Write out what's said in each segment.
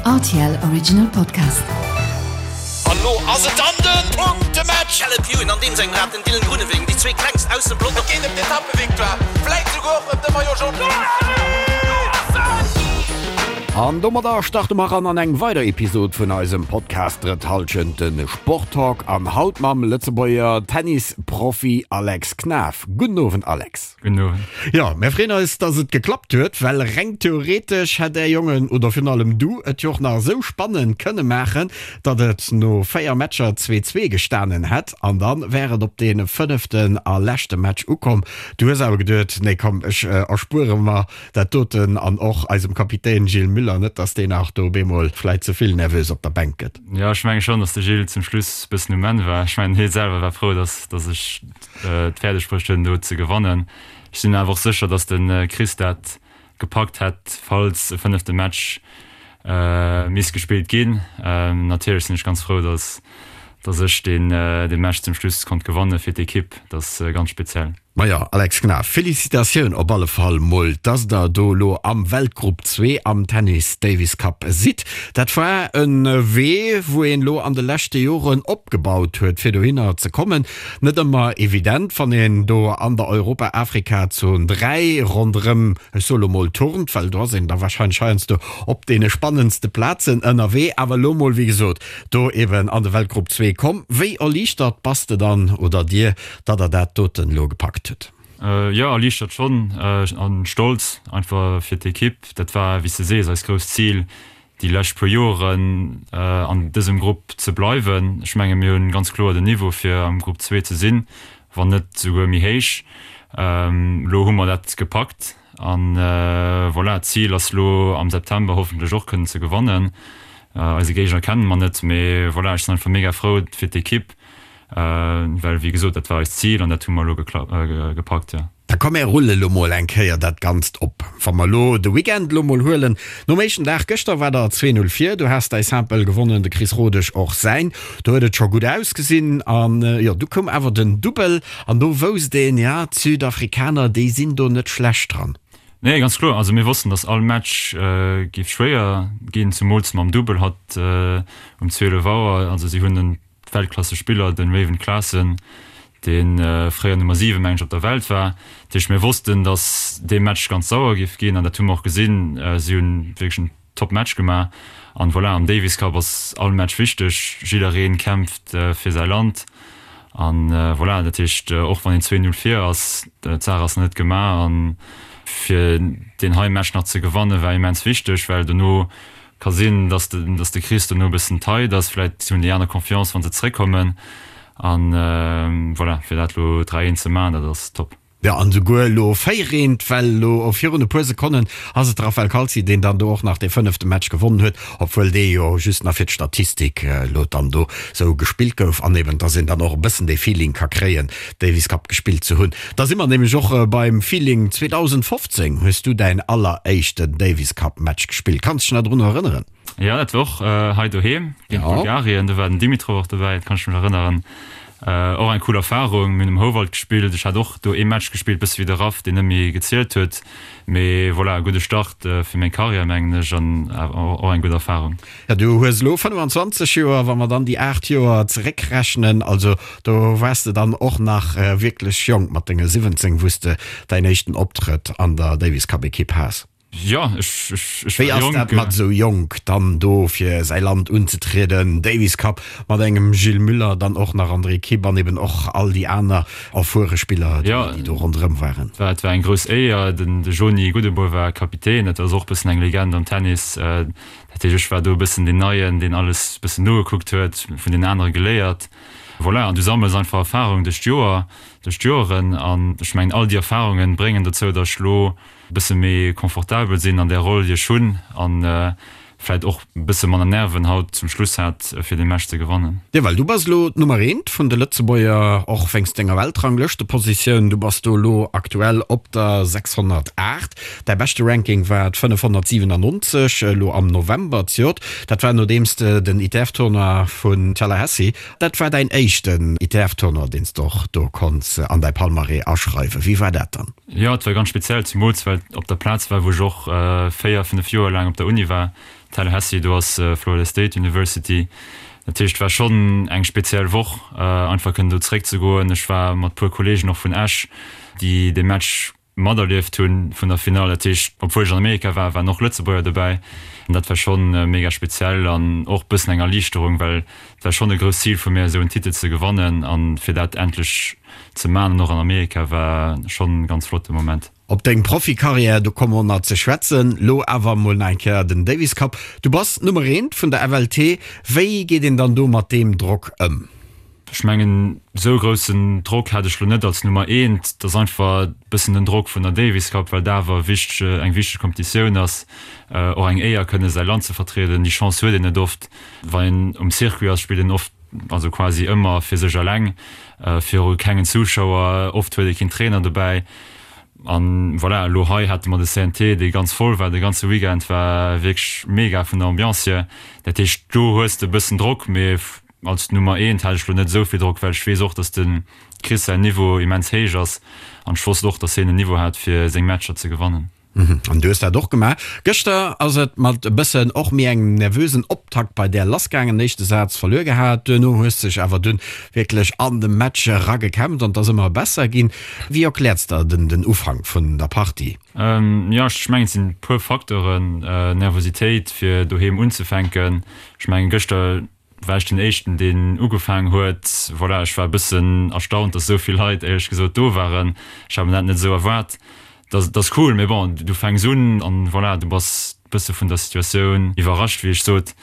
Rtl Original Podcast. An lo ass et dann den Punktematch! Caleb Ewan an deem sengem Rad, den Dylan Groenewegen, déi zwee klengst aus dem Pelotong. Et geet ëm d'Etappevictoire, vläit souguer och ëm de Maillot Jaune. An domadder starte mer eran an eng weider Episod vun eisem Podcast Drëtt Hallschent, de Sporttalk. An haut mam Lëtzebuerger Tennisprofi Alex Knaff. Gudden Owend Alex. Gudden Owend. Jo, mär freeën eis, dass et geklappt huet, well reng theoretesch hätt är Jongen, oder virun allem du, et jo och nach esou spannend kënne maachen, datt et no 4 Matcher 2, 2 gestanen hätt an da wär et op dee fënneften a leschte Match ukomm. Du hues awer geduet, nee komm, ech erspuere mer dat doten an och eisem Kapitän Gilles Müller, net dass deen nach do op eemol vläit ze vill nervös op der Bänk gëtt. Jo, ech menge schonn, dass de Gilles zum Schluss e bëssen um Enn war. Ech mengen, hie selwer war frou, dass dass ech et fäerdeg bruecht hunn do ze gewannen. Ech sinn awer och sécher, datt de Chris dat gepackt hätt, falls e fënnefte Match misst gespillt ginn. Natierlech sinn ech ganz frou, datt datt ech deen dee Match zum Schluss konnt gewanne fir d'Ekipp. Dat ass ganz speziell. Majo, Alex Knaff, Felicitatioun op alle Fall mol, dass der do elo am Weltgrupp 2 am Tennis Davis Cup sidd. Dat war e Wee, wou een elo an de leschte Joren opgebaut huet, fir dohinner ze kommen. Net ëmmer evident, wann een do an der Europa-Afrika-Zon 3 ronderëm, ech soe lo mol, turnt, well do ass een da warscheinlech heiansdo op deene spannendste Plazen ënnerwee. Awer elo mol, wéi gesot, do eben an de Weltgrupp 2 komm. Wéi erliichtert bass de dann, oder dir, datt der dat doten elo gepackt hutt? Jo, erliichtert schonn an stolz einfach fir d'Ekipp. Dat war, wéi s de sees, eist grousst Zil déi lescht puer Joeren an dësem Grupp ze bleiwen. Ech menge mir hunn ganz kloer den Niveau fir am Grupp 2 ze sinn, wann net souguer méi héich. Elo hu mer dat gepackt an voilà, d'Zil ass lo am September hoffentlech och kënnen ze gewannen. Eise Géigner kenne mer net, mee voilà, ech sinn einfach mega frou fir d'Ekipp, well wéi gesot, dat war eist Zil an dat hu mer elo gepackt, jo. Da komm mär rulle lo mol eng Kéier dat Ganzt op. Wa mer lo de Weekend lo mol huelen, nom éischten Dag gëschter war der 2, 0 vir, du has däi Simple gewonnen, de Chris Rodesch och säin, do huet et scho gutt ausgesinn an jo, du koum awer den Dubbel an do wousst een, ja, d'Südafrikaner, déi sinn do net schlecht dran. Nee, ganz kloer. Also mir wossten, datt all Match géif schwéier ginn, zumools mam Dubbel hatt um 12 Auer. Also si hunn en Weltklassespiller, den Raven Klaasen, dee fréier Nummer 7, mengen ech, op der Welt war. Dat heescht, mir wossten, datt dee Match ganz sauer géif ginn an dat hu mer och gesinn. Si hunn wierklech en top Match gemaach an voilà, am Davis Cup ass all Match wichteg, jidderee kämpft fir säi Land an voilà, dat heescht, och wann een 2, 0 vir ass, d'Saach ass nach net gemaach an fir deen hei Match nach ze gewanne war immens wichteg, well dono Ka sinn, dass de, dass de Chris dono e bëssen tight ass. Vläit hunn déi aner Confiance, wa se zréckkommen. An voilà, fir dat elo 3, 1 ze maachen, dat ass top. Jo, an esouguer elo 4, 1, well elo virun e puer Sekonnen ass et de Raphael Calzi, deen dann do och nach dee fënnefte Match gewonnen huet, obwuel dee jo just nach fir d'Statistik elo dann do sou gespillt gouf an eben, dass een dann och e bëssen dee Feeling ka kréien, Davis Cup gespillt ze hunn. Da si mer nämlech och beim Feeling, 2015 hues du däin alleréischten Davis Cup Match gespillt. Kanns dech nach drun erënneren? Jo, dat war och hei doheem géint Bulgarien. Do war den Dimitrov och dobäi, dat kann ech mech erënneren. Och eng cool Erfarung. Mir hunn um Houwald gespillt. Ech hat och do ee Match gespillt, bësse wéi de Raph, deen net méi gezielt huet. Mee voilà, e gudde Start fir meng Karriär, mengen ech, an och eng gutt Erfarung. Ja, du hues elo 25 Joer, wa mer dann déi 8 Joer zeréckrechnen, also do waars de dann och nach wierklech jonk mat denge 17, wou s de däin éischten Optrëtt an der Davis Cup Ekipp has. Jo, ech, ech, ech Wéi war ass jonk. dat mat esou jonk dann do fir säi Land unzetrieden, Davis Cup mat engem Gilles Müller, dann och nach an der Ekipp an eben och all déi aner erfuere Spiller, Jo, déi do ronderëm waren? et war, et war eng grouss Éier. Den, de Joni Goudebour war Kapitän, dat ass och e bëssen eng Legend am Tennis. Dat heescht, ech war do e bëssen deen Neien, deen alles e bëssen nogekuckt huet, vun den anere geléiert. Voilà, an du sammels einfach Erfarung duerch d'Joer, duerch d'Joeren. An ech mengen, all déi Erfarunge bréngen dozou, datt ech elo e bësse méi confortabel sinn an där Roll, déi ech hunn, an vläicht och e bësse manner Nerven haut zum Schluss hat, fir dee Match ze gewannen. Jo, well du bass elo d'Nummer eent vun de Lëtzebuerger, och wéinst denger Weltranglëschtepositioun. Du bass do elo aktuell op der 608. Däi beschte Ranking war d'597 elo am November zejoert. Dat war nodeems de den ITF-Tournoi vun Tallahassee, dat war däin éischten ITF-Tournoi, deen s de och do konns an däi Palmarès aschreiwen. Wéi war dat dann? Jo, et war ganz speziell, zemools well et op der Plaz war, wou ech och 4, 5 Joer laang op der Uni war. Tallahassee, do ass Florida State University. Dat heescht, et war schonn eng speziell Woch, einfach kënnen do zeréckzegoen. Ech war mat puer Kolleegen och vun Esch, déi dee Match materlieft hunn vun der Finall. Dat heescht, obwuel ech an Amerika war, waren och Lëtzebuerger dobäi. An dat war schonn mega speziell an och bëssen eng Erliichterung, well et war schonn e grousst Zil vu mir, esou en Titel ze gewannen an fir dat endlech ze man an och an Amerika war schonn ganz flotte Moment. Op deng Profikarriär, do komme mer nach ze schwätzen. Lo awer mol nach eng Kéier den Davis Cup. Du bass d'Nummer eent vun der FLT. Wéi geet een dann do mat deem Drock ëm? Ech mengen, esou groussen Drock hat ech lo net als Nummer eent. Et ass einfach e bëssen den Drock vun der Davis Cup, well dat awer wichteg, eng wichteg Kompetitioun ass. Och eng Éier kënne säi Land ze vertrieden, déi Chance huet een net oft. Wann een um Circuit ass, spillt een oft, also quasi ëmmer fir sech eleng, viru kengen Zuschauer, oft huet ee keen Trainer dobäi. An voilà, elo hei hate mer de CNT, dee ganz voll war de ganze Weekend, war wierklech mega vun der Ambiance hier. Dat heescht, do hues de e bëssen Drock, mee als Nummer eent hat ech elo net esou vill Drock, well ech weess och, datt de Chris säin Niveau immens héich ass an ech wosst och, datt hien en Niveau hat, fir seng Matcher ze gewannen. An du hues dat och gemaach. Gëschter ass et mat e bëssen och méi engem nervösen Optakt bei där lassgaangen. Éischte Saz verluer gehat, duerno hues dech awer dunn wierklech an de Match eragekämpft an et ass ëmmer besser ginn. Wéi erkläerts der den den Ufank vun der Partie? Jo, ech mengen et sinn e puer Facteuren. Nervositéit fir doheem unzefänken. Ech mengen gëschter war ech den éischten deen ugefaangen huet. Voilà, ech war e bëssen erstaunt, dass esou vill Leit éierlech gesot do waren. Ech hat mir dat net esou erwaart. Dat ass cool, mee bon, du fänks un an voilà, du bass e bësse vun der Situatioun iwwerrascht, wéi ech sot.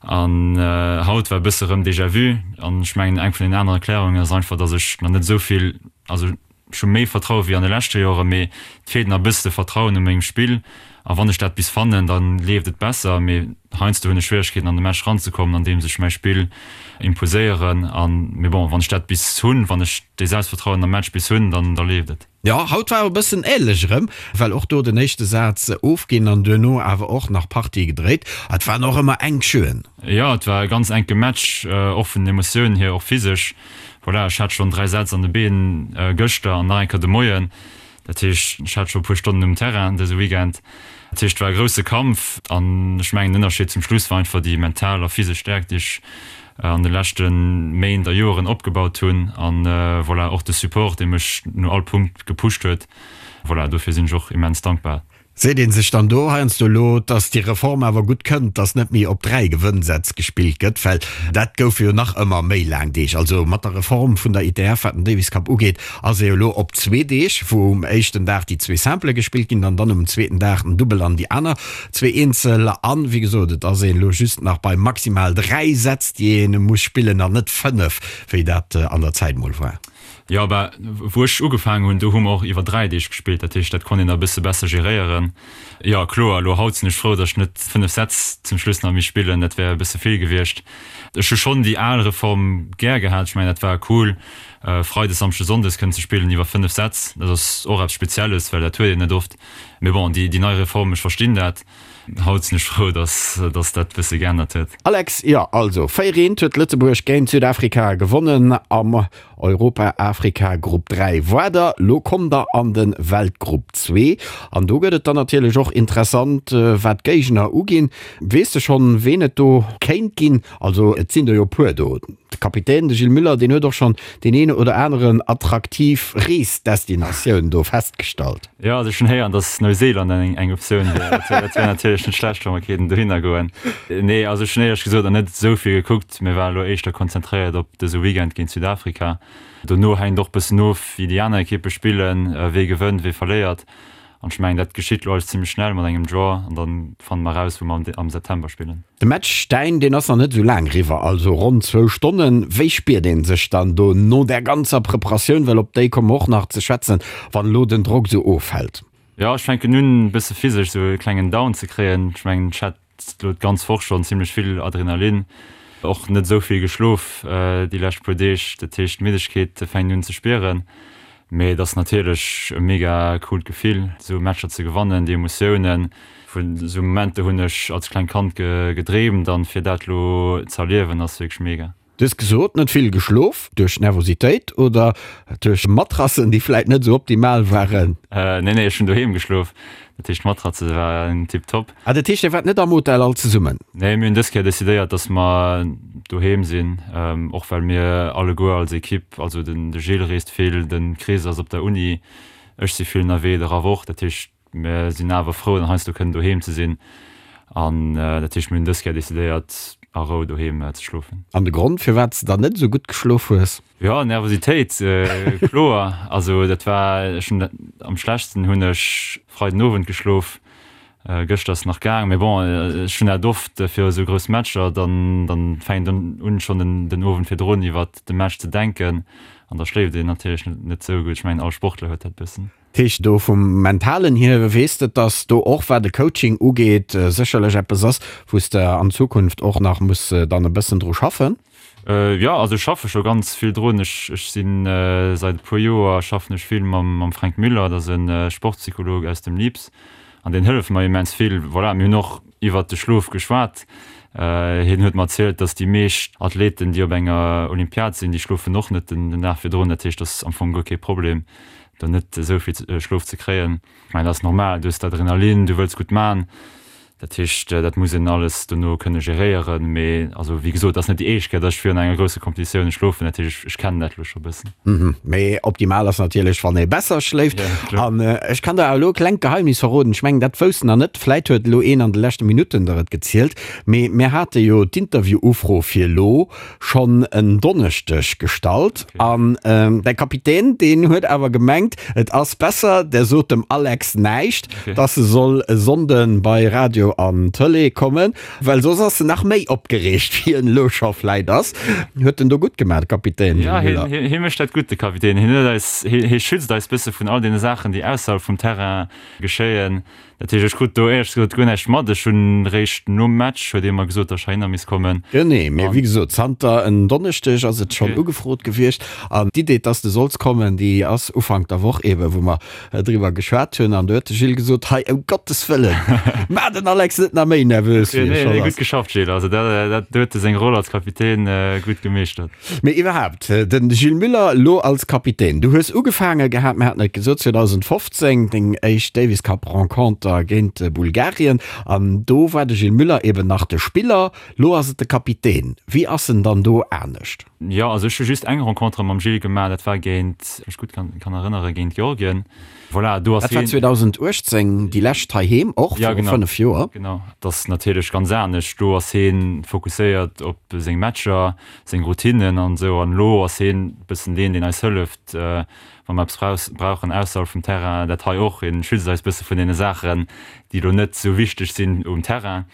An haut war e bësse rëm Déjà-vu. An ech mengen eng vun den aneren Erklärungen ass einfach, dass ech nach net esou vill, also Ech hu méi Vertraue wéi an de leschte Joren, mee et feelt nach e bësse de Vertrauen u mengem Spill. A wann ech dat bis fannen, da leeft et besser. Mee heiansdo hunn ech Schwieregkeeten an de Match ranzekommen, andeems ech mäi Spill imposéieren. An, mee bon, wann ech dat bis hunn, wann ech dee Selbstvertrauen am Match bis hunn, dann da leeft et. Jo, haut war e bëssen änlech erëm, well och do den éischte Saz ofginn an duerno awer och nach Partie gedréit. Et waren och ëmmer enk Jeuxen. Jo, et war e ganz enke Match, och vun den Emotiounen hier, och physesch. Voilà, ech hat schonn 3 Sätz an de Been gëschter an nach eng Kéier de Moien. Dat heescht, ech hat scho e puer Stonnen um Terrain dëse Weekend. Dat heescht, et war e grousse Kampf an ech mengen, den Ënnerscheed zum Schluss war einfach déi mental a physesch Stäerkt, déi ech an de leschte Méint a Joeren opgebaut hunn an voilà, och de Support, dee mech no all Punkt gepusht huet. Voilà, dofir sinn ech och immens dankbar. Seet ee sech dann do heiansdo elo, dass déi Reform awer gutt kënnt, dass net méi op 3 Gewënnsätz gespillt gëtt, well dat goufe jo nach ëmmer méi laang Deeg. Also mat der Reform vun der ITF, wat den Davis Cup ugeet, ass ee jo elo op zwee Deeg, wou um éischten Dag déi zwee Simplë gespillt ginn an dann um zweeten Dag den Dubbel an déi aner zwee Eenzel. An, wéi gesot, et ass een elo just nach bei maximal 3 Sätz, déi ee muss spillen an net 5, wéi dat an der Zäit mol war. Jo, bah, wou ech ugefaangen hunn, do hu mer och iwwer 3 Deeg gespillt, dat heescht, dat konnt een da e bësse besser geréieren. Jo, kloer, elo haut sinn ech frou, datt ech net 5 Sätz zum Schluss nach misst spillen, dat wär e bësse vill gewiescht. Ech hu schonn déi al Reform gär gehat, ech mengen, dat war cool, Freides, Samschdes, Sonndes kënnen ze spillen iwwer 5 Sätz, dat ass och eppes Spezielles, well dat huet een net oft. Mee bon, déi nei Reform, ech verstinn dat. Haut sinn ech frou, dass dass dat bësse geännert huet. Alex, Jo, also 4 eent huet Lëtzebuerg géint Südafrika gewonnen am Europa-Afrika Grupp 3. Woarder, lo kommt der an de Weltgrupp 2 an do gëtt et dann natierlech och interessant wat d'Géigner uginn. Weess de schonn ween et do kéint ginn? Also et sinn der jo e puer do. De Kapitän, de Gilles Müller, deen huet och schonn deen een oder aneren attraktiv Reesdestinatioun do festgestallt. Jo, also ech hunn héieren, datt Neuseeland eng eng Optioun wier. Dat wär dat wär natierlech net schlecht, wa mer kéinten dohinner goen. Nee, also ech hunn éierlech gesot nach net esou vill gekuckt. Mir waren elo éischter konzentréiert op dëse Weekend géint Südafrika. Dono hänkt och bëssen of, wéi déi aner Ekippe spillen, wee gewënnt, wee verléiert. An ech mengen, dat geschitt elo alles zimmlech schnell mat engem Draw an dann fanne mer eraus, wou mer am September spillen. De Match däin, deen ass nach net esou laang eriwwer, also ronn zwou Stonnen. Wéi spiert ee sech dann do no där ganzer Preparatioun, well op déi komme mer och nach ze schwätzen, wann elo den Drock esou ofhält? Jo, ech fänken un e bësse physesch esou e klengen Down ze kréien. Ech mengen, ech hat elo d'ganz Woch schonn zimmlech vill Adrenalin, och net esou vill geschlof déi lescht puer Deeg. Dat heescht, d'Middegkeet fänkt un ze spieren. Mee et ass natierlech e mega coolt Gefill, esou Matcher ze gewannen, déi Emotiounen. Vun esou Momenter hunn ech als klengt Kand gedreemt an fir dat elo ze erliewen ass wierklech mega. Du hues gesot, net vill geschlof, duerch Nervositéit oder duerch Matrassen, déi vläit net esou optimal waren? Nee, nee, ech hunn doheem geschlof. Dat heescht d'Matratze war tiptop. Ah, dat heescht Dir waart net am Hotel all zesummen? Nee, mir hunn dës Kéier decidéiert, dass mer doheem sinn, och well mir alleguer als Ekipp, also den de Gilles reest vill, de Chris ass op der Uni, ech si vill ënnerwee, de Raph och. Dat heescht mir sinn awer frou dann heiansdo kënnen doheem ze sinn an dat heescht mir hunn dës Kéier decidéiert a Rou doheem ze schlofen. An de Grond firwat s de dann net esou gutt geschlof hues? Jo, Nervositéit, kloer. Also dat war, ech hunn am schlechtsten hunn ech Freiden Owend geschlof, gëschter ass nach gaang, mee bon, ech hunn dat oft fir esou grouss Matcher, dann dann fänkt een un schonn den den Owend virdrun iwwert de Match ze denken an da schléift een natierlech net esou gutt. Ech mengen all Sportler huet dat bëssen. Dat heescht, do vum Mentalen hier weess de, dass do och wat de Coaching ugeet sécherlech eppes ass, wou s de an Zukunft och nach muss dann e bëssen dru schaffen? Jo, also ech schaffe scho ganz vill drun. Ech ech sinn säit e puer Joer schaffen ech vill mam mam Fränk Müller, dat ass e Sportpsycholog aus dem LIPS an deen hëlleft mer immens vill. Voilà, mir hunn och iwwert de Schlof geschwat. Hien huet mer erzielt, datt déi meescht Athleten, déi op enger Olympiad sinn, déi schlofen och net den den Dag virdrun. Dat heescht, dat ass am Fong guer kee Problem, do net esou vill Schlof ze kréien. Ech mengen, dat ass normal, du hues d'Adrenalin, du wëlls gutt man. Dat heescht, dat muss een alles dono kënne geréieren. Mee also, wéi gesot, dat ass net déi éischt Kéier, datt ech virun enger grousse Competitioun schlofen. Dat heescht, ech kennen dat elo scho e bëssen. Mee optimal ass natierlech, wann ee besser schléift. An ech kann der elo e klengt Geheimnis verroden, ech mengen, dat wousst nach net, vläit huet elo een an de leschte Minutten der et gezielt, mee mir hate jo d'Interview-Ufro fir elo schonn en Donneschdeg gestallt an däi Kapitän, deen huet awer gemengt, et ass besser, der sot dem Alex näischt, dass e soll e Sonnde bei Radio an Tëlee kommen, well soss ass en nach méi opgereegt, wéi en elo scho vläit ass. Huet en do gutt gemaach, de Kapitän Gilles Muller? Jo, hie mécht dat gutt, de Kapitän. Hien huet eis, hie schützt eis bësse vun all deene Saachen, déi ausserhalb vum Terrain geschéien. Dat heescht, ech krut do éierlech gesot guer näischt mat. Ech hunn réischt nom Match huet ee mer gesot, datt ech heihinner misst kommen. Genee, mee wéi gesot, zanter en Donneschdeg ass et schonn ugefrot gewiescht. An d'Idee, dass de solls kommen, déi ass Ufank der Woch eeben, wou mer driwwer geschwat hunn. An do huet de Gilles gesot, Hei, ëm Gottes Wëllen, maach den Alex net nach méi nervös, wéi e schonn ass. Gutt geschafft, Gilles. Also dat, do huet e seng Roll als Kapitän gutt gemeeschtert. Mee iwwerhaapt, de Gilles Muller elo als Kapitän. Du hues ugefaange gehat, mir haten et gesot, 2015 deng éischt Davis Cup Renconter géint Bulgarien an do war de Gilles Muller eben nach de Spiller, lo ass et de Kapitän. Wéi ass en dann do anescht? Jo, also ech hu just eng Rencontre mam Gilles gemaach, dat war géint, wann ech gutt kann erënneren, géint Georgien. Voilà, do ass Dat war 2018, déi lescht heiheem, och viru 5 Joer. Genau, dat ass natierlech ganz anescht. Do ass hien fokusséiert op seng Matcher, seng Routinen an esou. An elo ass hien e bëssen deen, deen eis hëlleft, wa mer eppes brauchen ausserhalb vum Terrain. Dat hei och, hien schützt eis bësse vun deene Saachen, déi elo net esou wichteg sinn um Terrain.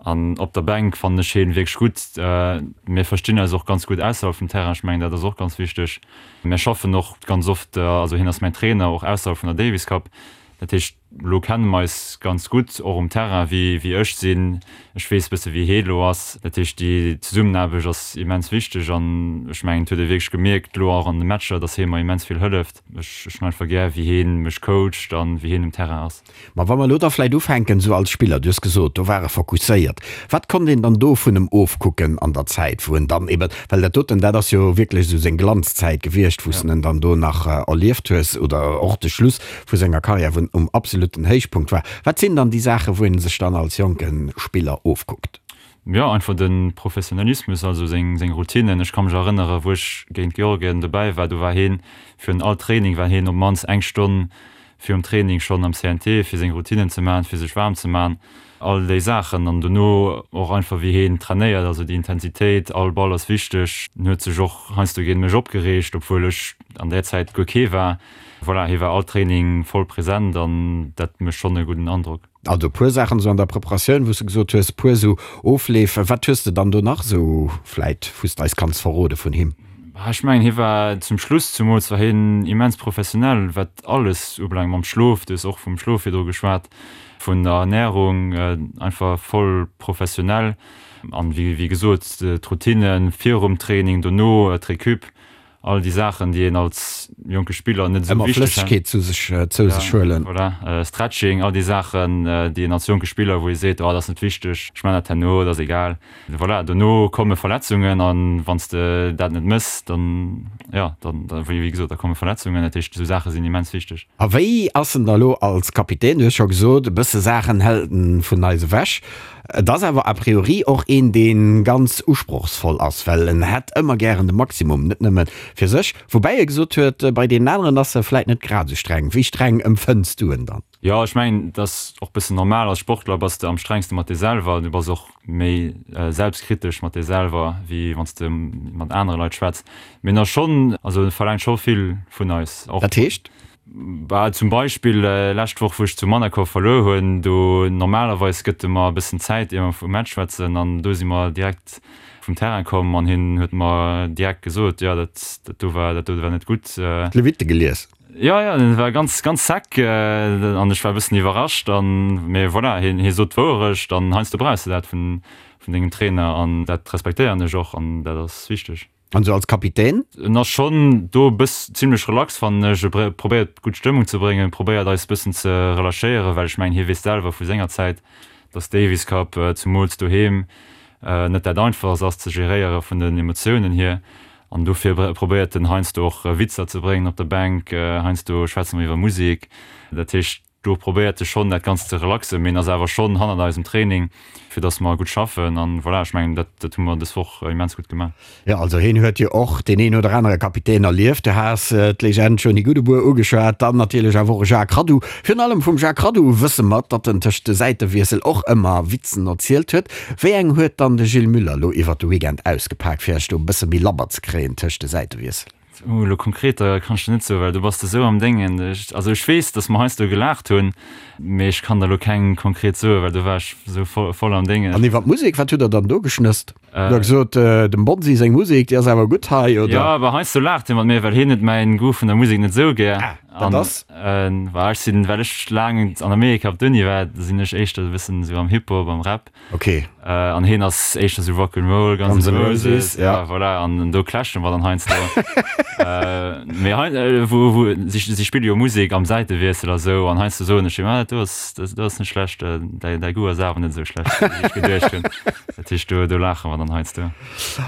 An op der Bänk fannen ech hien wierklech gutt. Mir verstinn eis och ganz gutt ausserhalb vum Terrain. Ech mengen, dat ass och ganz wichteg. Mir schaffen och ganz oft, also hien ass mäin Trainer, och ausserhalb vun der Davis Cup. Dat heescht, elo kenne mer eis ganz gutt, och um Terrain, wéi wéi ech sinn. Ech weess bësse wéi hie elo ass. Dat heescht, déi Zesummenaarbecht ass immens wichteg an ech mengen, et huet ee wierklech gemierkt elo och an de Matcher, datt hie mer immens vill hëlleft. Ech ech hunn einfach gär, wéi hie mech coacht an wéi hien um Terrain ass. Ma wa mer elo da vläit ufänken, esou als Spiller, du hues gesot, do war e fokusséiert. Wat konnt een dann do vun em ofkucken an der Zäit, wou en dann eben, well dat doten, dat ass jo wierklech esou seng Glanzzäit gewiescht, wou s de en dann do nach erlieft hues, oder och de Schluss vu senger Karriär, wou en um absoluten Héichpunkt war. Wat sinn dann déi Saachen, wou ee sech dann als jonke Spiller ofkuckt? Jo, einfach de Professionalismus, also seng seng Routinen. Ech ka mech erënnere wou ech géint Georgien dobäi war, do war hien, virun all Training war hien op d'mannst eng Stonn virum Training schonn am CNT, fir seng Routinen ze maachen, fir sech waarm ze maachen, all déi Saachen. An dono och einfach wéi heen trainéiert, also déi Intensitéit, all Ball ass wichteg. En huet sech och heiansdo géint mech opgereegt, obwuel ech an där Zäit guer kee war. Voilà, hie war all Training voll present an dat mécht schonn e gudden Androck. Also e puer Saachen esou an der Preparatioun, wou s de gesot hues, e puer esou Ofleef. Wat hues de dann do nach esou vläit, wou s de eis kanns verrode vun him? Ech mengen, hie war zum Schluss zumools war hien immens professionell, wat alles ubelaangt, mam Schlof, du hues och vum Schlof virdru geschwat, vun der Ernärung, einfach voll professionell. An wéi gesot, d'Routine virum Training, dono d'Recup. All déi Saachen, déi een als jonke Spiller net esou Ëmmer wichteg Flëssegkeet zu sech, zou sech huelen. Voilà, Stretching, all déi Saachen, déi een als jonke Spiller, wou ee seet, oh dat ass net wichteg, ech man dat herno, dat ass egal. Voilà, dono komme Verletzungen an wann s de dat net mëss, dann, jo, dann, wéi gesot, da komme Verletzungen. Dat heescht, esou Saache sinn immens wichteg. A wéi ass en da lo als Kapitän? Du hues scho gesot, e bësse Saachen hält en vun eis ewech. Et ass awer a priori och een, dee ganz usprochsvoll ass, well en hätt ëmmer gären de Maximum, net nëmme fir sech. Woubäi e gesot huet, bei deenen aneren ass e vläit net grad esou streng. Wéi streng empfënns du en dann? Jo, ech mengen, et ass och bëssen normal. Als Sportler bass de am strengste mat dir selwer. Du bass och méi selbstkritesch mat dir selwer, wéi wann s de mat anere Leit schwätz. Mee en ass schonn, also e verlaangt scho vill vun eis och. Dat heescht? Bah, zum Beispill lescht Woch wou ech zu Manacor verluer hunn, do normalerweis gëtt e mer e bëssen Zäit ier mer vum Match schwätzen an do si mer direkt vum Terrain komm an hien huet mer direkt gesot, jo dat dat do war dat do war net gutt. D'Lewitte gelies? Jo, jo, en war ganz ganz sec an ech war e bëssen iwwerrascht an mee voilà, hien hie sot d'Wouerecht an heiansdo brauchs de dat vun vun dengem Trainer an dat respektéieren ech och an dat ass wichteg. An sou als Kapitän? En ass schonn do e bëss zimlech relax fannen ech. E probéiert gutt Stëmmung ze bréngen, probéiert eis bëssen ze relâchéieren, well ech mengen hie weess selwer vu senger Zäit, dass Davis Cup zumools doheem net dat einfachst ass ze geréiere vun den Emotiounen hier. An dofir probéiert en heiansdo och Witzer ze bréngen op der Bänk, heiansdo schwätze mer iwwer Musek. Dat heescht. Do probéiert e schonn dat Ganzt ze relaxen, mee en ass awer schonn hannert eis um Training, fir dass mer gutt schaffen. An voilà, ech mengen, dat dat hu mer dës Woch immens gutt gemaach. Jo, also hien huet jo och deen een oder anere Kapitän erlieft. Du has d'Legend Johnny Goudebour ugeschwat, dann natierlech awer och e Jacques Raddu. Virun allem vum Jacques Raddu wësse mer, datt en tëscht de Säitewiessel och ëmmer Witzen erzielt huet. Wéi eng huet dann de Gilles Muller lo iwwert de Weekend ausgepak, fir iech do e bësse méi labber ze kréien tëscht de Säitewiessel? Oh, elo konkreter kann ech der net soen, well do bass de sou am Déngen. Ech, also ech weess, dass mer heiansdo gelaacht hunn, mee ech kann der elo keng konkret soen, well do war ech sou voll, voll am Déngen. An iwwer d'Musek, wat hutt der dann do geschnësst? Hutt der gesot, dem Bonsi seng Musek, déi ass awer gutt hei, oder? Jo, awer heiansdo laacht hie mat mir, well hien huet mäin Goût vun der Musek net sou gär. Ah, dat ass? An, well ech sinn, well ech laang an Amerika op d'Uni war, sinn ech éischter e bëssen sou am Hip-Hop, am Rap. Ok. An heen ass éischter sou Rock'n'Roll, Guns N' Roses, ja voilà, an do clashen mer dann heiansdo. Mee hei, wou, wou, si, si spille jo Musek am Säitewiessel a sou, an heiansdo soen ech him, ah dat do ass, dat do ass net schlecht, däi, däi Goût ass awer net esou schlecht, wéi ech geduecht hunn. Dat heescht, do, do laache mer dann heiansdo.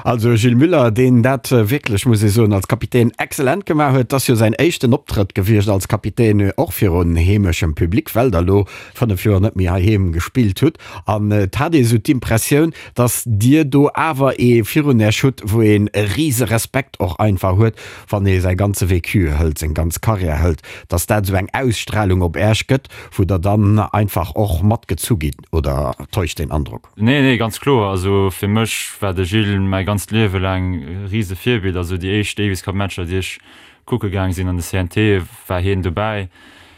Also Gilles Muller, deen dat wierklech, muss ee soen, als Kapitän excellent gemaach huet. Et ass jo säin éischten Optrëtt gewiescht als Kapitän, och virun heemeschem Public, well der elo 5 Joer net méi heiheem gespillt hutt an et hat ee sou d'Impressioun, dass Dir do awer ee virun Äech hutt, wou een e rise Respekt och einfach huet, wann ee säi ganze Vécu hëlt, seng ganz Karriär hëlt, dass dat esou eng Ausstrahlung op Äech gëtt, wou Der dann einfach och matgezu gitt, oder täuscht deen Androck? Nee, nee, ganz kloer. Also fir mech war de Gilles mäi ganzt Liewe laang e rise Virbild. Also déi éischt Davis Cup Matcher, déi ech kucke gaang sinn an de CNT, war hien dobäi.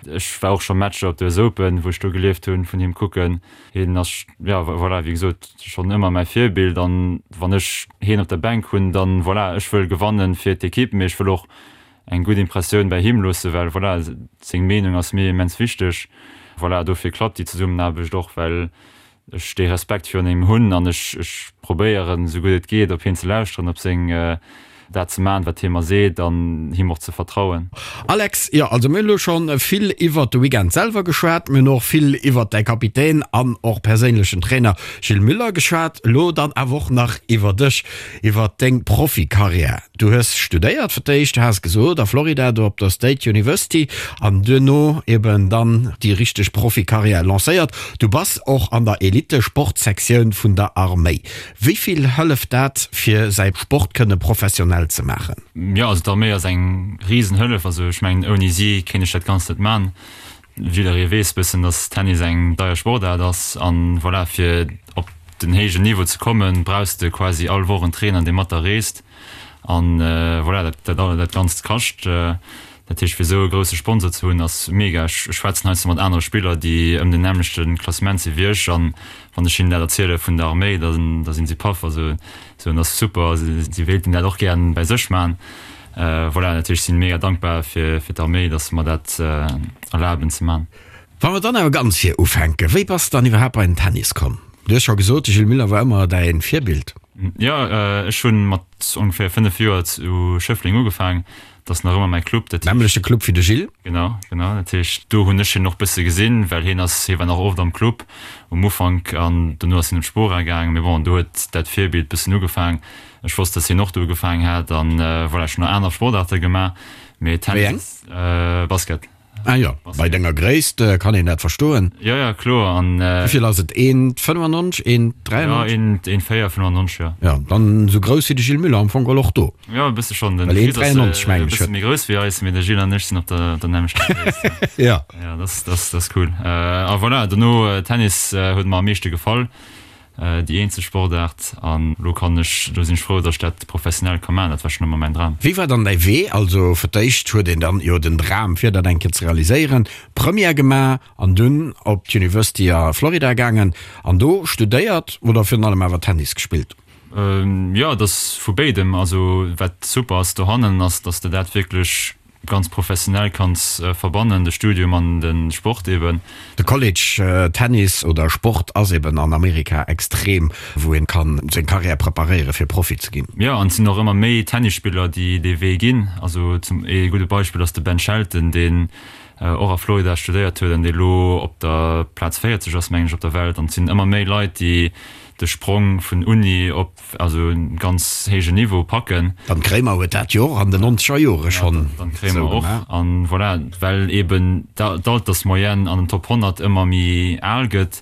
Ech war och scho Matcher op der US Open, wou ech do gelieft hunn, vun him kucken. Hien ass, jo voilà, wéi gesot, schonn ëmmer mäi Virbild. An wann ech hien op der Bänk hunn, dann, voilà, ech wëll gewannen fir d'Ekipp, mee ech wëll och eng gutt Impressioun bäi him loossen, well, voilà, seng Meenung ass mir immens wichteg. Voilà, dofir klappt déi Zesummenaarbecht och, well ech dee Respekt virun him hunn an ech ech probéieren esou gutt et geet op hien ze lauschteren, op seng dat ze maachen wat hie mer seet an him och ze vertrauen. Alex, Jo, also mir hunn elo schonn vill iwwert de Weekend selwer geschwat, mir hunn och vill iwwert däi Kapitän an och perséinlechen Trainer Gilles Muller geschwat, elo dann awer och nach iwwer dech, iwwer deng Profikarriär. Du hues studéiert fir d'éischt, du has gesot a Florida, do op der State University an duerno eben dann déi richteg Profikarriär lancéiert. Du bass och an der Elite-Sportsektioun vun der Arméi. Wéi vill hëlleft dat fir säi Sport kënne professionell ze maachen? Jo, also d'Arméi ass eng Risenhëllef. Also ech mengen ouni si kéint ech dat Ganzt net man. Jidderee weess bëssen, dass Tennis eng deier Sportaart ass an voilà, fir op den héijen Niveau ze kommen, brauchs de quasi all Woch en Trainer, dee mat der reest an voilà, dat dat dat Ganzt kascht. Dat heescht, fir esou e grousse Sponsor ze hunn, ass mega. Ech schwätzen heiansdo mat anere Spiller, déi ëm den nämmlechte Klassement si wéi ech an wann ech hinnen dat erziele vun der Arméi, da da sinn si paff. Also soen, ass super, si wéilten dat och gären bäi sech maachen. Voilà, natierlech sinn mega dankbar fir fir d'Arméi, dass se mer dat erlaben ze man. Wa mer dann awer ganz vir ufänken, wéi bass de dann iwwerhaapt bei den Tennis komm? Du hues scho gesot, de Gilles Muller war ëmmer däin Virbild. Jo, ech hu mat ongeféier 5 Joer zu Schëffleng ugefaang. Dat ass nach ëmmer mäi Club. Dat heescht. Nämmlechte Club wéi de Gilles. Genau, genau. Dat heescht, do hunn ech hien och bësse gesinn, well hien ass, hie war nach oft am Club um Ufank an dono ass hien op d'Spora gaangen. Mee bon, do huet dat Virbild bëssen ugefaang. Ech wosst, dass hien och do ugefaang hat an voilà, ech hunn nach aner Sportaarte gemaach, mee Tennis, Basket. Ah jo, bei denger Gréisst kann een dat verstoen. Jo, jo, kloer. An. Wéi vill ass et? 1,95? 1,93? Jo, 1,94, jo. Jo, dann esou grouss wéi de Gilles Muller am Fong geholl och do. Jo, e bësse schonn. Den Chris ass e bësse méi grouss wéi eis, mee de Gilles an ech sinn op der der nämmlechter Gréisst. Jo. Jo, dat ass, dat ass cool. A voilà, dono Tennis huet mer am meeschte gefall. Déi eenzeg Sportaart an elo kann ech, elo sinn ech frou, datt ech dat professionell ka maachen. Dat war schonn ëmmer mäin Dram. Wéi war dann däi Wee? Also fir d'éischt huet een dann jo den Dram fir dat eng Kéier ze realiséieren, Première gemaach an dunn op d'University a Florida gaangen an do studéiert oder virun allem awer Tennis gespillt? Jo, et ass vu béidem. Also wat super ass dohannen ass, datt s de dat wierklech ganz professionell kanns verbannen, de Studium an de Sport eben. De College Tennis oder Sport ass eben an Amerika extrem, wou een kann seng Carrière preparéieren fir Profi ze ginn. Jo, an et sinn och ëmmer méi Tennisspiller déi dee Wee ginn. Also zum ee gudde Beispill ass de Ben Shelton, deen och a Florida studéiert huet an dee lo op der Plaz 40 ass mengen ech op der Welt. An et sinn ëmmer méi Leit déi de Sprong vun Uni op also en ganz héijen Niveau packen. Dan Kremer huet dat jo och an den nonzeger Jore schonn esou gemaach. An voilà, well eben d'Altersmoyenne an den Top 100 ëmmer méi al gëtt,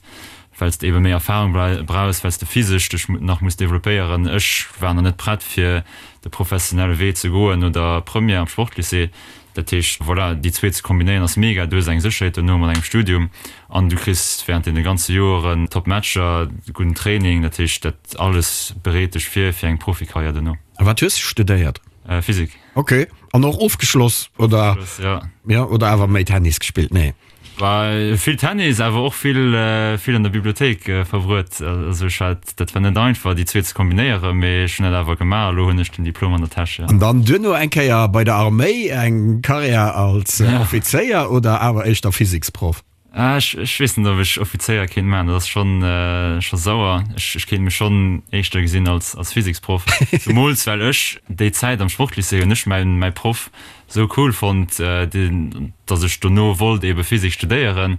well s de ebe méi Erfahrung brauchs, well s de physesch dech nach muss developpéieren. Ech war nach net prett fir de professionelle Wee ze goen no der Première am Sportlycée. Dat heescht, voilà, déi zwee ze kombinéieren ass mega. Du hues eng Sécherheet dono mat engem Studium an du kriss während deene ganze Joeren top Matcher, gudden Training. Dat heescht, dat alles bereet dech vir fir eng Profikarriär dono. A wat hues de studéiert? Physik. Ok, an och ofgeschloss oder? Ofgeschloss, jo. Jo, oder awer méi Tennis gespillt? Nee. Vill Tennis, awer och vill vill an der Bibliothéik verbruet. Also ech hat, dat war net einfach déi zwee ze kombinéieren, mee ech hunn dat awer gemaach a lo hunn ech den Diplom an der Täsch, jo. An dann duerno eng Kéier bei der Arméi eng Karriär als Offizéier oder awer éischter Physiksproff? Ech ech weess net ob ech Offizéier kéint maachen, dat ass schonn scho sauer. Ech ech kéint mech schonn éischter gesinn als als Physiksproff, zemools well ech déi Zäit am Sportlycée hunn ech mäin mäi Proff Sou cool fonnt, dass ech dono wollt ebe Physik studéieren.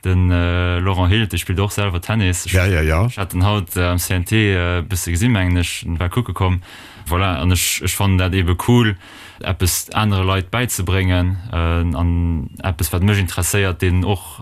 Den Laurent Hild, dee spillt och selwer Tennis. Ech hat en haut am CNT e bësse gesinn, mengen ech, en war kucke komm. Voilà, an ech ech fannen dat ebe cool, eppes anere Leit bäizebréngen an eppes, wat mech interesséiert, deenen och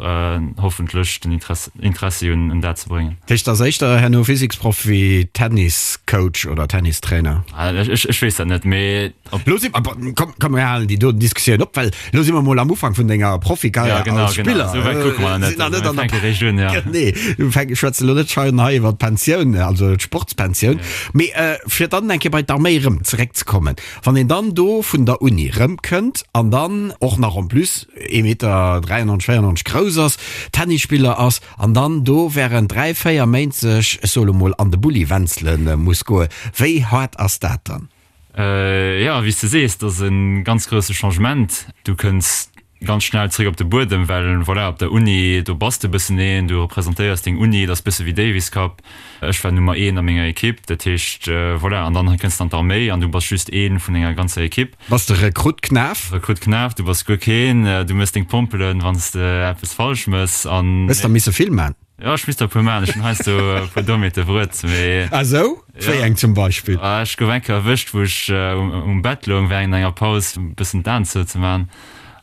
hoffentlech den Interessi un dat ze bréngen. Dat heescht, ass éischter herno Physiksproff wéi Tenniscoach oder Tennistrainer? Ech weess dat net, mee Lo si komm, komm mir halen déi doten Diskussioun op, well lo si mer mol am Ufank vun denger Profikarriär ja, genau, als Spiller. Genau. Esou wäit kucke mer net. Net an der Region, ja. Nee, du fänk, schwätze lo net schein hei iwwer d'Pensioun, also d'Sportspensioun. Ja. Mee äh, fir dann eng Kéier bei d'Arméi rëm zeréckzekommen, wann een dann do vun der Uni rëmkënnt an dann och nach en plus ee Meter 93, 94 grouss ass, Tennisspiller ass an dann do während 3, 4 Méint sech, ech soe lo mol, an de Bulli wenzele muss goen, wéi haart ass dat dann? Jo, wéi s de sees, dat ass e ganz grousse Changement. Du kënns ganz schnell zréck op de Buedem, well voilà, op der Uni, do bass de e bëssen een, du representéiers deng Uni, dat ass e bësse wéi Davis Cup. Ech war Nummer een a menger Ekipp, dat heescht, voilà, an dann kënns de an d'Arméi an du bass just ee vun enger ganzer Ekipp. Bass de Rekrutt Knaf? Rekrutt Knaf, du bass guer keen, du mëss deng Pompelen, wann s de eppes falsch mëss an. Hues der misse vill man? Jo, ech misst der e puer maachen. Ech hunn heiansdo e puer Dommheete bruet, mee. Ah sou? Wéi eng zum Beispill? Ech gouf eng Kéier erwëscht, wou ech um Bett loung wärend enger Paus e bëssen d'Aen zou ze maachen.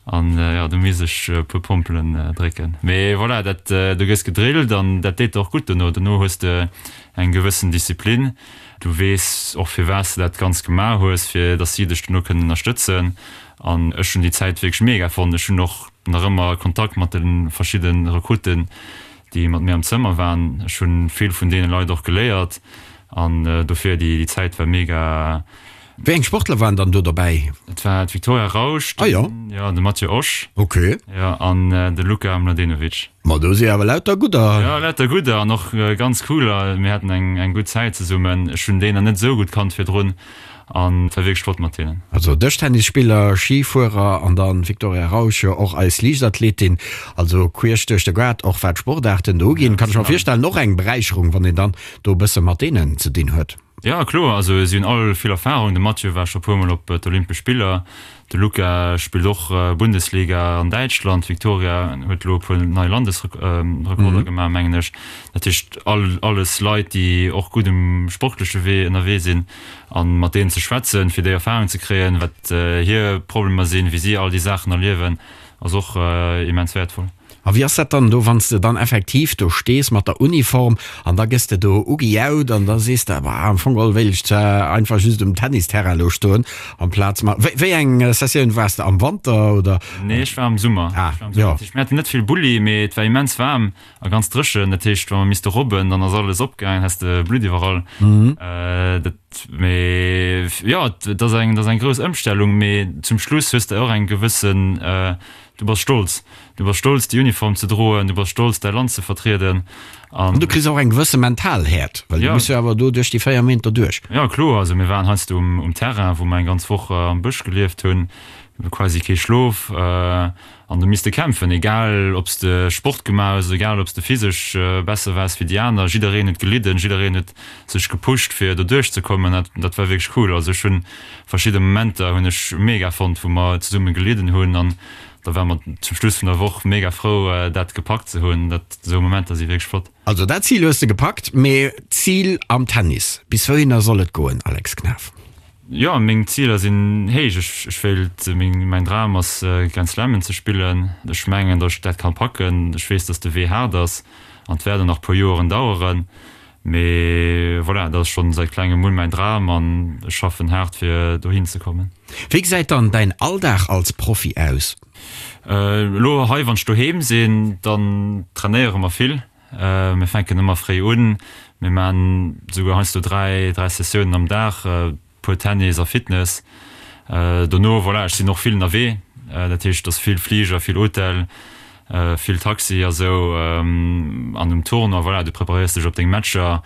An jo, do misst ech e puer Pompelen drécken. Mee voilà, dat, du gëss gedrillt an dat deet der och gutt dono. Dono hues de eng gewëssen Disziplin. Du weess och firwat s de dat Ganzt gemaach hues, fir datt si dech dono kënnen ënnerstëtzen. An ech hunn déi Zäit wierklech mega fonnt. Ech hunn och nach ëmmer Kontakt mat de verschidde Rekrutten, déi mat mir am Zëmmer waren. Ech hu vill vun deene Leit och geléiert an dofir déi Zäit war mega. Wéi eng Sportler waren dann do dobäi? Et war d'Victoria Rausch, ah, jo. Jo, de Mathieu Osch, ok, jo, an de Luka Mladenovic. Ma do si awer lauter gudder. Jo, lauter gudder an och ganz cooler. Mir haten eng gutt Zäit zesummen. Ech hunn déi nach net esou gutt kannt virdrun. An et war wierklech flott mat hinnen. Also Dëschtennisspiller, Schifuerer an dann Victoria Rausch, jo och eis Liichtathletin. Also queesch duerch de Gaart, och wat d'Sportaarten do uginn. Kann ech mer virstellen, och eng Beräicherung, wann een dann do e bësse mat deenen ze dinn huet. Jo, kloer. Also si hunn all vill Erfarung. De Mathieu war scho puer Mol op d'Olympesch Spiller. De Luca spillt och Bundesliga an Däitschland. D'Victoria huet elo e puer nei Landesrekorder gemaach, mengen ech. Dat heescht, all, alles Leit, déi och gutt um sportleche Wee ënnerwee sinn. A mat deenen ze schwätzen, fir déi Erfarung ze kréien, wat hir Problemer sinn, wéi si all déi Saachen erliewen, ass och immens wäertvoll. A wéi ass dat dann do, wann s de dann effektiv do stees mat der Uniform an da gëss de do ugejaut an da sees de, Bah, am Fong geholl wéilt ech zwar einfach just um Tennisterrain elo stoen amplaz ma. Wéi, wéi eng Sessioun waars de, am Wanter oder? Nee, ech war am Summer. Ah, jo. Dat heescht, mir haten net vill Bulli, mee et war immens waarm a ganz dréchen. Dat heescht, wa mer misste robben, dann ass alles opgaangen, häss de Blutt iwwerall. Dat, mee jo, et ass eng, et ass eng grouss Ëmstellung, mee zum Schluss hues de och eng gewëssen, Du bass stolz. Du bass stolz, déi Uniform ze droen. Du bass stolz, däi Land ze vertrieden. An du kriss och eng gewësse mental Häert, well du muss jo awer do duerch déi 4 Méint derduerch. Jo, kloer. Also mir waren heiansdo um Terrain, wou mer eng ganz Woch am Bësch gelieft hunn, quasi kee Schlof an du misste kämpfen, egal ob s de Sport gemaach hues, egal ob s de physesch besser waars wéi déi aner. Jiddereen huet gelidden, jiddereen huet sech gepusht, fir do duerchzekommen. Dat war wierklech cool. Also ech hunn Verschidde Momenter hunn ech mega fonnt, wou mer zesumme gelidden hunn an da ware mer zum Schluss vun der Woch mega frou dat gepackt ze hunn. Dat, esou Momenter si wierklech flott. Also dat Zil hues de gepackt, mee d'Zil am Tennis, bis wouhinner soll et goen, Alex Knaff? Jo, meng Ziler sinn héich. Ech, ech wéilt, meng, mäin Dram ass Grand Slammen ze spillen. Ech mengen, datt ech dat kann packen. Ech weess, datt de Wee haart ass an et wäert och nach puer Joeren daueren. Mee voilà, dat ass schonn säit klengem un mäin Dram an ech schaffen haart fir dohin ze kommen. Wéi gesäit dann däin Alldag als Profi aus? Elo hei wann ech doheem sinn, dann trainéiere mer vill. Mir fänken ëmmer fréi un, mir maan souguer heiansdo 3, 3 Sessiounen am Dag. Puer Tennis a Fitness. Dono, voilà, ech sinn och vill ënnerwee, dat heescht, et ass vill Fliger, vill Hotel, vill Taxi a sou. An um Tournoi, voilà, du preparéiers dech op deng Matcher,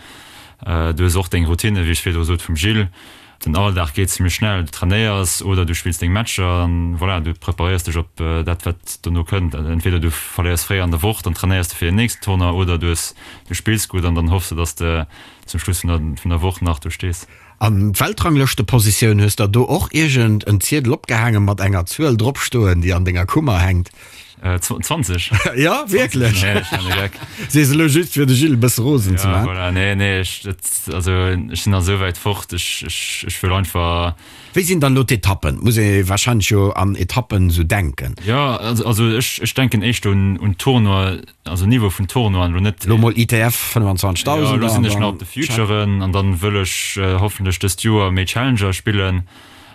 du hues och deng Routine, wéi ech virdru sot, vum Gilles. Den Alldag geet zimmlech schnell, du trainéiers oder du spills deng Matcher an voilà, du preparéiers dech op dat, wat dono kënnt. Entweder du verléiers fréi an der Woch, dann trainéiers de fir den nächsten Tournoi oder du hues, du spills gutt an dann hoffs de, dass de zum Schluss vun der Woch nach do stees. An d'Weltranglëschtepositioun, hues der do och iergend en Ziedel opgehaangen mat enger Zuel drop stoen, déi an denger Kummer hänkt? 20. Jo, wierklech? Nee, ech man e Geck. Sees elo just fir de Gilles e bësse rosen ze Ja, man. voilà, nee, nee, ech, dat, also ech sinn nach esou wäit fort, ech, ech, ech wëll einfach. Wéi sinn dann elo d'Etappen? Muss ee wahrscheinlech jo an Etappen esou denken. Jo, also, also ech, ech denken éischter un, un Tournoi, Also Niveau vun Tournoien elo net. Elo mol ITF 25.000. Jo, elo sinn ech nach op de Futuren an dann wëll ech hoffentlech dëst Joer méi Challenger spillen.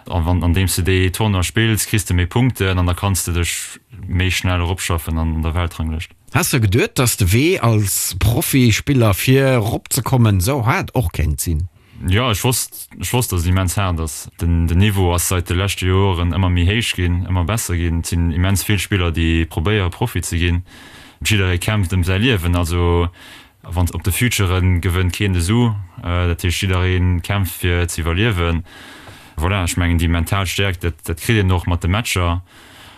An wann andeems de déi Tournoie spills, kriss de méi Punkten an da kanns de dech méi schnell eropschaffen an der Weltranglëscht. Has de geduet, dass de Wee als Profispiller fir eropzekommen esou haart och kéint sinn? Jo, ech wosst, ech wosst, dass et immens haart ass. Den, den Niveau ass seit de leschte Joren ëmmer méi héich ginn, ëmmer besser ginn. Et sinn immens vill Spiller, déi probéiere Profi ze ginn. Jidderee kämpft ëm säi Liewen. Also wann op de Futuren gewënnt keen de Su. Dat heescht jidderee kämpft fir ze iwwerliewen. Voilà, ech mengen déi mental Stäerkt, dat, dat kritt een och mat de Matcher.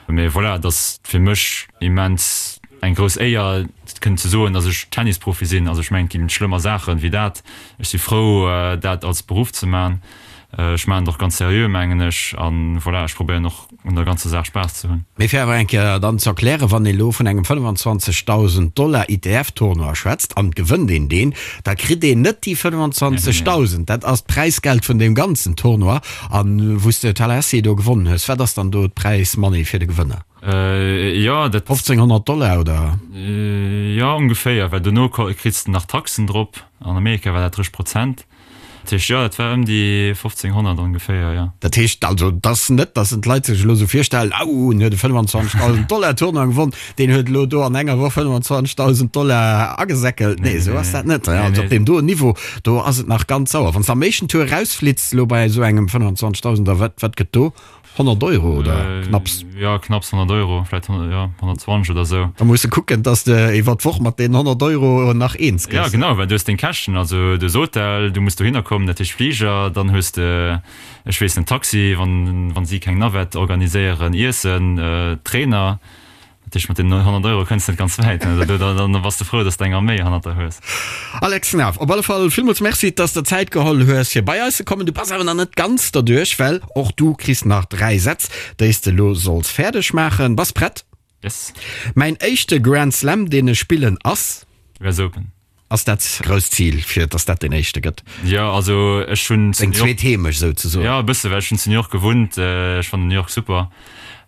Mee voilà, et ass fir mech immens eng grouss Éier kënnen ze soen, datt ech Tennisprofi sinn. Also ech mengen, et ginn schlëmmer Saachen wéi dat. Ech si frou, dat als Beruff ze man. Ech maachen et och ganz seriö, mengen ech. An voilà, ech probéieren och un der ganzer Saach Spaass ze hunn. Mee fir awer eng Kéier dann ze erklären, wann ee lo vun engem 25.000 Dollar ITF-Tournoi schwätzt an et gewënnt een deen, da kritt een net déi 25.000. Dat ass d'Präisgeld vun deem ganzen Tournoi. An wou s de Tallahassee do gewonnen hues, wat ass dann do d'Präis-Money fir de Gewënner? Jo, dat. 1500 Dollar oder? Jo, ongeféier, well dono kriss de nach Taxen drop. An Amerika war dat 30 Prozent. Dat heescht, jo, dat war ëm déi 1500 ongeféier, jo. Dat heescht also, et ass net, datt en d'Leit sech elo esou virstellen, Au, en huet e 25.000 Dollar Tournoi gewonn, deen huet elo do an enger Woch 25.000 Dollar agesäckelt. Nee, esou ass dat net. Also op deem doen Niveau, do ass et nach ganz sauer. Wann s de am éischten Tour erausflitts elo bei esou engem 25.000 er, wat, wat gëtt do? 100 Euro oder knapps? Jo, knapps 100 Euro, vläit jo 120 oder esou. Da muss de kucken, dass de iwwer d'Woch mat deenen 100 Euro nach eens gëss. Jo, genau, well du hues deng Käschten, also du hues Hotel, du muss dohinner kommen, dat heescht Fliger, dann hues de, ech weess net, Taxi, wann, wann si keng Navette organiséieren, Iessen, Trainer. Dat heescht, mat deenen 100 Euro kënns de net ganz wäit, ne? Da, da, da bass de frou, dass de eng Arméi hannert der hues. Alex Knaff, op alle Fall villmools Merci, dass de Zäit geholl hues, fir bei eis ze kommen. Du bass awer nach net ganz derduerch, well och du kriss nach 3 Sätz, déi s de elo solls fäerdeg maachen. Bass prett? Yes. Mäin éischte Grand Slam, deen ech spillen, ass? US Open. Ass dat grousst Zil, fir dass dat deen éischte gëtt? Jo, also ech hunn zu Deng New York. Zweet Heemecht souzesoen. Jo, e bësse, well ech hunn zu New York gewunnt. Ech fannen New York super.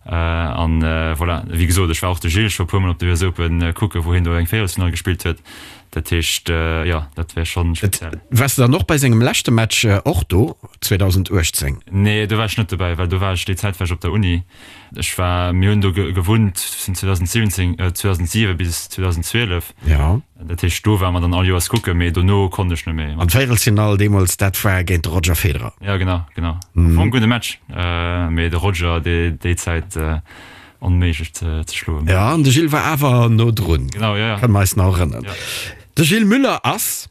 An voilà, wéi gesot, ech war och de Gilles scho e puermol op de US Open kucken, wou hien do eng Véierelsfinall gespillt huet. Dat heescht, jo, dat wär schonn speziell. Waars de dann och bei sengem leschte Match och do, 2018? Nee, do war ech net dobäi, well do war ech, déi Zäit war ech op der Uni. Ech war, mir hunn do gewunnt vun 2017, 2007 bis 2012. Ja. Dat heescht, do ware mer dann all Joers kucken, mee dono konnt ech net méi. An d'Véierelsfinall deemools, dat war géint de Roger Federer. Ja, genau, genau. Am Fong gudde Match, mee de Roger déi, déi Zäit onméiglech ze, ze schloen. Ja, an de Gilles war awer no drun. Genau, ja, ja. Kënne mer eis nach erënneren. Ja. De Gilles Müller ass.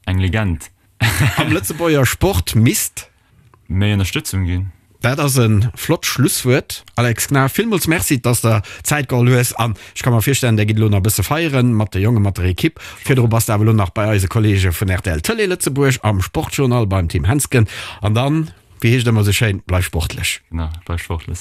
Eng Legend. Am Lëtzebuerger Sport misst. Méi Ënnerstëtzung ginn. Dat ass e flott Schlusswuert. Alex Knaff, villmools Merci, dass der Zäit geholl hues. An ech ka mer virstellen, der gitt elo nach e bësse feieren mat de Jongen, mat der Ekipp. Virdru bass de awer elo nach bei eise Kollege vun rtl Tëlee Lëtzebuerg am Sportjournal beim Tim Hensgen. An dann, wéi heescht et ëmmer esou schéin, bleif sportlech. Genau, bleif sportlech.